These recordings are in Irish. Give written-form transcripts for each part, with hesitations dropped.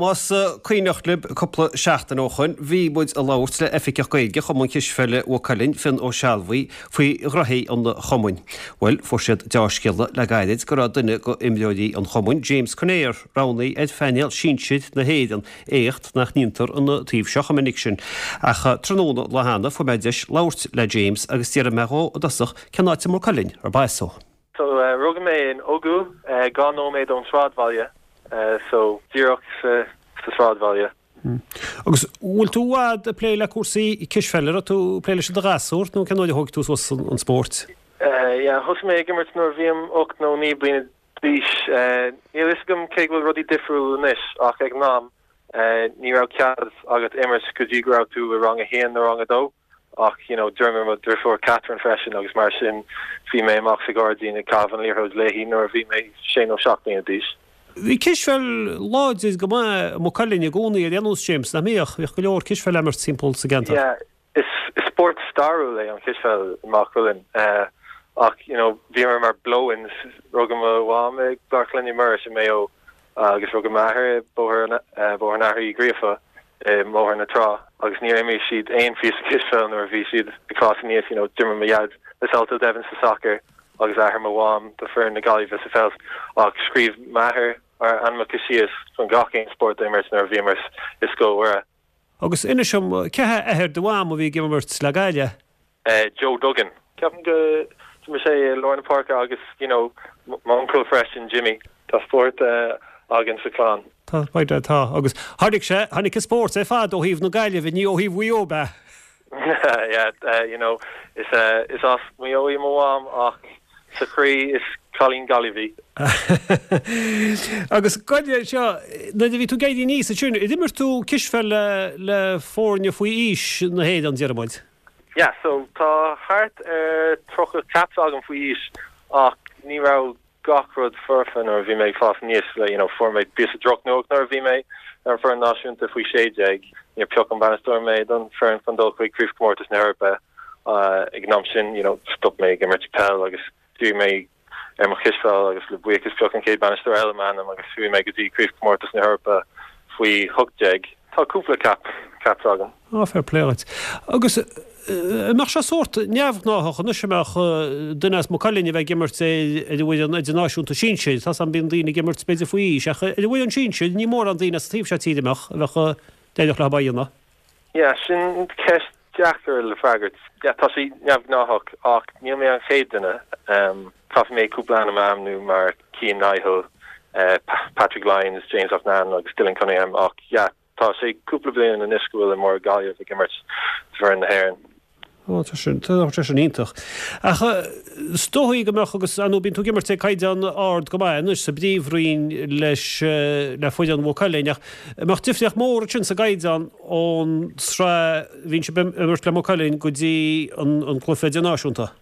Más cuimhneach libh cúpla seachtain ó shoin bhí muid ag labhairt le Oifigeach Gaeilge Chumann Cispheile Mhaigh Cuilinn, Fionn Ó Sealbhaigh, faoi ghnoithí an chumainn. Bhuel, fuair siad deá-scéala le gairid go raibh duine go imreoirí an chumainn, James Conaire, roghnaithe ar phainéal sinsir na hÉireann, éacht nach ndéantar an taobh seo chomh minic sin. Ach tráthnóna an lá cheana fuair mé deis labhairt le James agus d'fhiafraigh mé dhó i dtosach cén áit i Maigh Cuilinn arb as dó. So, rugadh mé in Ogoo, 2 nóiméad ón sráidbhaile, so díreach sa sráidbhaile. Agus bhfuil tú i bhfad ag plé le cúrsaí cispheile, raibh tú ag plé leis i do ghasúr nó cén uair a thóig tú suas an spórt? Yeah, thosaigh mé ag imirt nuair a bhí 8 nó 9 bliana d'aois. Níl a fhios agam cé go bhfuil rudaí difriúil anois ach ag an am ní raibh cead agat imirt go dtí go raibh tú i rang a haon nó rang a dó. Ach, you know, d'imir mo dhriofúr Catherine freisin agus mar sin bhí mé amach sa ghairdín ag caitheamh an liathróid léi nuair a bhí mé sé nó seacht mbliana d'aois. Bhí cispheil láidir go maith i Maigh Cuilinn i gcónaí ar aon nós, James, nach mbíodh? Bhíodh go leor cispheil á imirt timpeall sa gceantar. Yeah, is spórt stairiúil é an chispheil i Maigh Cuilinn. Ach, you know, bhíomar mar blow-ins, rugadh mo mham i gClár Clainne Muiris i Maigh Eo agus rugadh m'athair i Bóthar Bóthar an Athar Uí Ghríofa i mBóthar na Trá agus níor imir siad aon phíosa cispheil nuair a bhí siad ag fás aníos, you know, d'imir mo dhaid le Salthill Devons sa sacar agus athair mo mham do foireann na Gaillimhe sa pheil ach scríobh m'athair ár ainmneacha síos chun gach aon spórt a imirt nuair a bhíomar i Scoil Mhuire. Agus inis dom, cé hé athair do mham a bhí ag imirt le Gaillimh? Joe Duggan. Ceapaim go d'imir sé i lár na páirce agus you know m'uncail freisin, Jimmy. Tá spórt againn sa chlann. Tá, tá. Agus tháinig sé, tháinig an spórt ar fad ó thaobh na Gaillimhe, ní ó thaobh Mhaigh Eo, ab ea? Yeah, you know, is is as Maigh Eo í mo mham ach sa chroí is cailín Gaillimhe í. Agus gabh i leith anseo, nuair a bhí tú ag éirí aníos ansin, ar imir tú cispheil le le foirne faoi aois na hÉireann, déarfaidh muid? Yeah, so tá thart ar 30 caps agam faoi aois ach ní raibh gach rud foirfe nuair a bhí mé ag fás aníos, you know, fuair mé píosa drochnuacht nuair a bhí mé ar an foireann náisiúnta faoi 16, níor phioc an bainisteoir mé don foireann chun dul chuig Craobhchomórtas na hEorpa. Ag an am sin, you know, stop mé ag imirt peil agus dhírigh mé ar mo chispheil agus le buíochas phioc an chéad bainisteoir eile m'ainm agus chuaigh mé go dtí Craobhchomórtas na hEorpa faoi 18. Tá cúpla cap, caps agam. Á, fair play dhuit. Agus an mbeadh sé sórt neamhghnáthach anois an mbeadh duine as Maigh Cuilinn a bheith ag imirt ar an bhfoireann idirnáisiúnta sinsir, tá 's agam bíonn daoine ag imirt b'fhéidir faoi aois ach ar an bhfoireann sinsir ní mórán daoine as an taobh seo tíre a mbeadh, a bheadh, d'éireodh leo é a dhéanamh. Yeah, sin ceist deacair le freagairt. Yeah, tá sé neamhghnáthach ach níl mé an chéad duine. Caithfidh mé cúpla ainm a ainmniú mar Cian Nihill, Patrick Lyons, James Loughnane agus Dylan Cunningham ach yeah, tá sé cúpla bliain anois go bhfuil imreoir Gaillimh ag imirt d'fhoireann na hÉireann. Ó, tá sin, tá sé sin iontach. Ach is dóigh go mbeadh, agus ar ndóigh bíonn tú ag imirt ag caighdeán ard go maith anois sa bPríomhroinn leis, le foireann Mhaigh Cuilinn, ach an mbeadh difríocht mhór ansin sa gcaighdeán ón tsraith a bhíonn sibh ag imirt le Maigh Cuilinn go dtí an an cluiche idirnáisiúnta?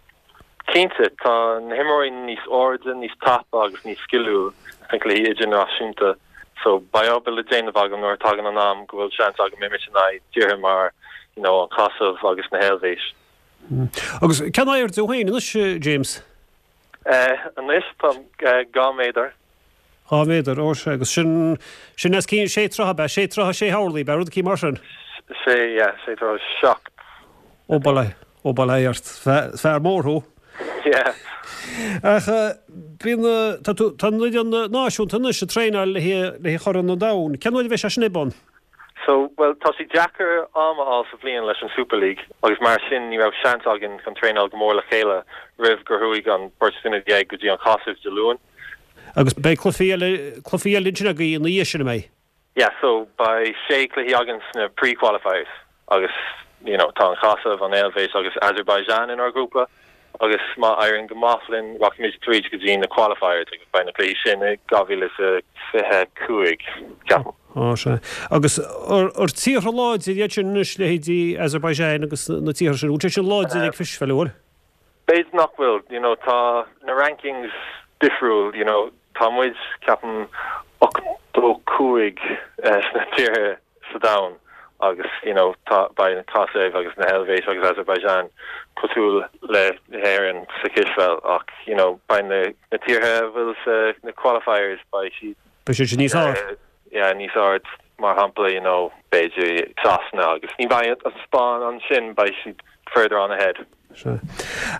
Cinnte, tá na himreoirí níos airde, níos tapa agus níos sciliúil sna cluichí idirnáisiúnta. So beidh obair le déanamh agam nuair a tagann an am go bhfuil seans agam imirt in aghaidh tíortha mar you know an Chosaiv agus na hEilvéis. Agus cén airde thú féin anois, James? Anois táim 2 méadar. 2 mhéadar, ó sea, agus sin, sin os cionn sé troithe, ab ea? Sé troithe, sé horlaí, ab ea? Rud eicínt mar sin? Sé, yeah, sé troithe 7. Ó, bail ó, ó bail ó Dhia ort. Fear mór thú. Yeah. Ach bíonn, tá tú, tá an fhoireann náisiúnta anois ag traenáil le haghaidh Chorn an Domhain. Cén uair a bheidh sé sin ar bun? So, bhuel, tá sé deacair am a fháil sa bhliain leis an Super League agus mar sin ní raibh seans againn chun traenáil go mór le chéile roimh gur chuaigh an beirt duine go dtí an Chosaiv Dé Luain. Agus beidh cluichí eile, cluichí eile ansin agaibh ina dhiaidh sin, an mbeidh? Yeah, so beidh sé cluichí againn sna pre-qualifiers agus you know tá an Chosaiv, an Eilvéis agus Azerbaijan inár ghrúpa agus má éiríonn go maith linn rachaimid tríd go dtí na qualifiers agus beidh na cluichí sin i 2025, ceapaim. Á, sea. Agus ar tíortha láidir iad sin anois, leithéidí Azerbaijan agus na tíortha sin, bhfuil siad sin láidir ag cispheil, an bhfuil? B'fhéidir nach bhfuil, you know, tá na rankings difriúil, you know, tá muid, ceapaim, 85 sna tíortha sa domhan agus, you know, tá, beidh an Chosaiv agus na hEilvéis agus Azerbaijan cosúil le hÉirinn sa chispheil ach, you know, beidh na, na tíortha a bhfuil sa, na qualifiers, beidh siad. Beidh siad sin níos airde. Yeah, níos airde. mar shampla, you know, b'fhéidir Sasana agus ní bheidh an Spáinn ansin, beidh siad further on ahead. Sea.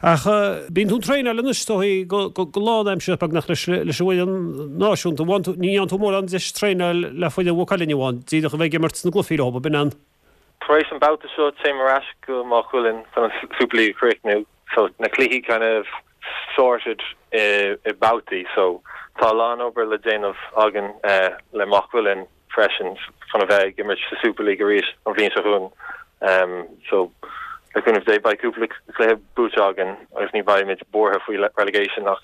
Ach bíonn tú ag traenáil anois is dóigh go lánaimseartha beagnach leis an bhfoireann náisiúnta. Ní fhaigheann tú mórán deis traenáil le foireann Mhaigh Cuilinn amháin, díreach a bheith ag imirt sna gcluichí leo, ab in an? Tar éis an babhta seo téim ar ais go Maigh Cuilinn chun an Super League a chríochnú. So na cluichí kind of sorted i mbabhtaí so tá a lán obair le déanamh againn le Maigh Cuilinn freisin chun a bheith ag imirt sa Super League arís an bhliain seo chugainn. So le cúnamh Dé beidh cúpla cluiche buaite againn agus ní bheimid buartha faoi relegation ach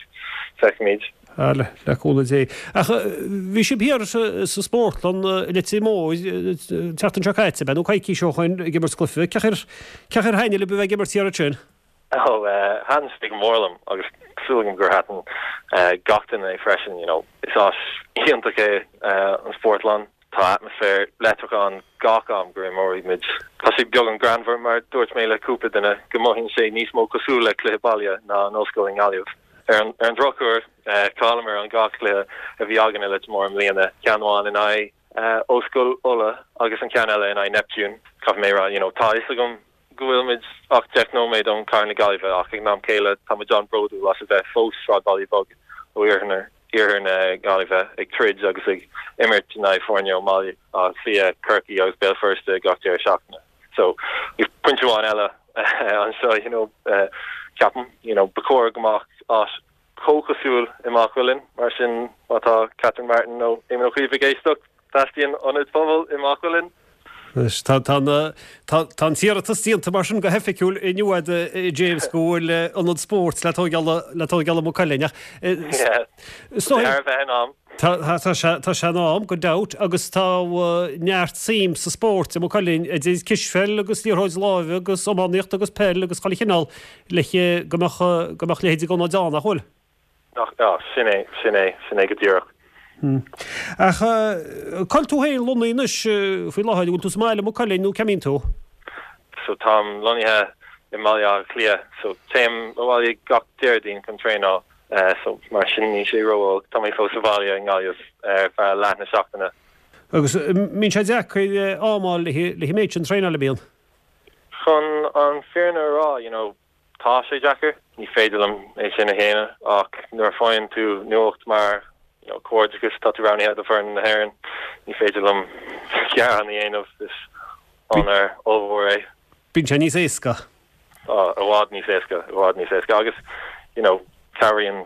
feicfimid. Ah, le cúnamh Dé. Ach bhí sibh thiar sa spórtlann i Leitir Móir an tseachtain seo caite, ab ea, nó coicís ó shoin ag imirt cluiche. Cén chaoi ar thaitnigh libh a bheith ag imirt thiar ansin? Ó, thaitin sé go mór liom agus súil agam gur thaitin gach duine é freisin. You know, is áis iontach é an spórtlann. Tá atmaisféar leictreach ann gach am go n-imreoimid. Tá sé beagán greannmhar, mar dúirt mé le cúpla duine, go mothaíonn sé níos mó cosúil le cluiche baile ná an ollscoil i nGaillimh. Ar an drochuair, chailleamar an dhá chluiche a bhí againn i Leitir Móir i mbliana, ceann amháin in aghaidh Ollscoil Uladh agus an ceann eile in aghaidh Neptune. Caithfidh mé a rá, you know, tá a fhios agam go bhfuilimid ach 10 nóiméad ón chathair na Gaillimhe ach ag an am céile tá muid an-bhródúil as a bheith fós sráidbhaile beag ó iarthar na Gaillimhe ag troid agus ag imirt in aghaidh foirne ó mBaile Átha Cliath, Corcaigh agus Béal Feirste gach deireadh seachtaine. So, pointe amháin eile anseo, you know, ceapaim, you know, ba chóir go mbeadh áis chomh cosúil i Maigh Cuilinn, mar sin má tá Catherine Martin nó Éamon Ó Cuív ag éisteacht, teastaíonn ionad pobail i Maigh Cuilinn. Anois, tá tá an t-iarratas déanta mar sin go hoifigiúil inniu agat, a James, go bhfuil ionad spóirt le tóigeáil le tóigeáil i Maigh Cuilinn ach is dóigh Thar a bheith in am. Tá tá sé tá sé in am, gan dabht, agus tá neart suim sa spórt i Maigh Cuilinn idir cispheil agus liathróid láimhe agus iománaíocht agus peil agus chuile chineál le go mbeadh go mbeadh leithéid d'ionaid ann, nach bhfuil? Nach, ah, sin é, sin é, sin é go díreach. Ach cá bhfuil tú féin lonnaithe anois faoi láthair, an bhfuil tú sa mbaile i Maigh Cuilinn nó cá mbíonn tú? So táim lonnaithe i mBaile Átha Cliath, so téim abhaile gach Déardaoin chun traenáil, so mar sin níl sé ró-olc, tá mé fós sa bhaile i nGaillimh ar feadh leath na seachtaine. Agus mbíonn sé deacair am a fháil le an méid sin traenáil, an mbíonn? Chun an fírinne a rá, you know, Tá sé deacair, ní féidir liom é sin a shéanadh, ach nuair a faigheann tú nuacht mar you know comhghairdeachas, tá tú roghnaithe do foireann na hÉireann, ní féidir liom gearán a dhéanamh, is onóir ollmhór é. Bíonn sé níos éasca. Tá, i bhfad níos éasca, i bhfad níos éasca agus you know cabhraíonn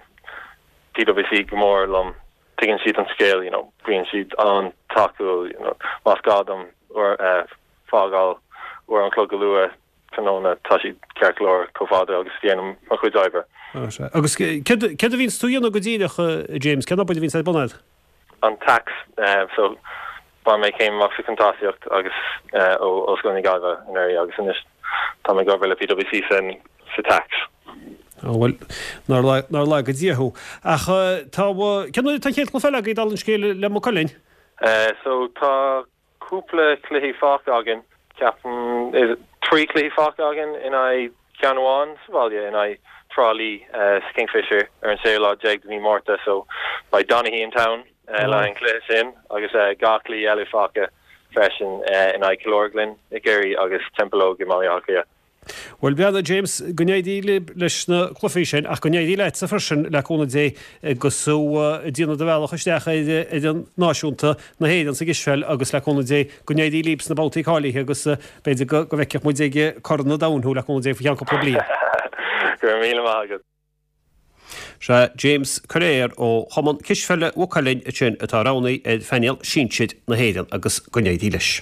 PwC go mór liom, tuigeann siad an scéal, you know bíonn siad an-tacúil, you know más gá dom fágáil uair an chloig go luath, tráthnóna, tá siad ceart go leor chomh fada agus a dhéanaim mo chuid oibre. Sea. Agus céard a bhíonns tú a dhéanamh go díreach, a James? Cén obair a bhíonns ar bun agat? An tax. So, bhain mé céim amach sa chuntasaíocht agus ó Ollscoil na Gaillimhe anuraidh agus anois tá mé ag obair le PwC san sa tax. Ó bhuel, nár nár laga Dia thú. Ach tá, cén uair atá an chéad chluiche eile agaibh dála an scéil le Maigh Cuilinn? So, tá cúpla cluichí fágtha againn, ceapaim, 3 cluichí fágtha againn in aghaidh ceann amháin sa bhaile in aghaidh Trá Lí sa Kingfisher ar an séú lá déag de mhí Márta so beidh Donaghy in town le haghaidh an cluiche sin agus 2 cluiche eile fágtha freisin in aghaidh Killorglin i gCiarraí agus Templeogue i mBaile Átha Cliath. Bhuel, breathnaigh, James, go n-éirí libh leis na cluichí sin, ach go n-éirí leatsa freisin, le cúnamh Dé, agus tú ag déanamh do bhealach isteach ar fhoireann náisiúnta na hÉireann sa gcispheil agus le cúnamh Dé, go n-éirí libh sna babhtaí cáilithe agus b'fhéidir go bhfeicfeadh muid ag Corn an Domhain thú, le cúnamh Dé, faoi cheann cúpla bliain. Go raibh míle maith agat. Sea, James Coiréar ó Chumann Cispheile Mhaigh Cuilinn ansin atá roghnaithe ar phainéal sinsir na hÉireann agus go n-éirí leis.